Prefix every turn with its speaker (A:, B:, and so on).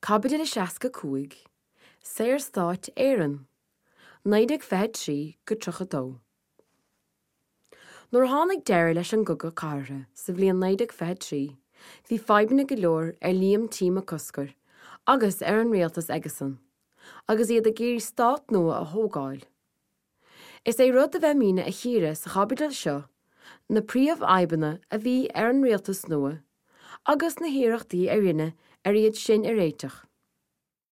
A: Caibidil 65, Saorstáit Éireann, 1923-32. Nuair a tháinig deireadh leis an gCogadh Cathartha sa bhliain 1923, bhí fadhbanna go leor ar Liam T. Mac Cosgair agus ar an rialtas aigesan, agus iad ag iarraidh stát nua a thógáil. Is é rud a bheimidne a chíoradh sa chaibidil seo na príomhfhadhbanna a bhí ar an rialtas nua agus na hiarrachtaí a rinneadh ar iad sin a réiteach.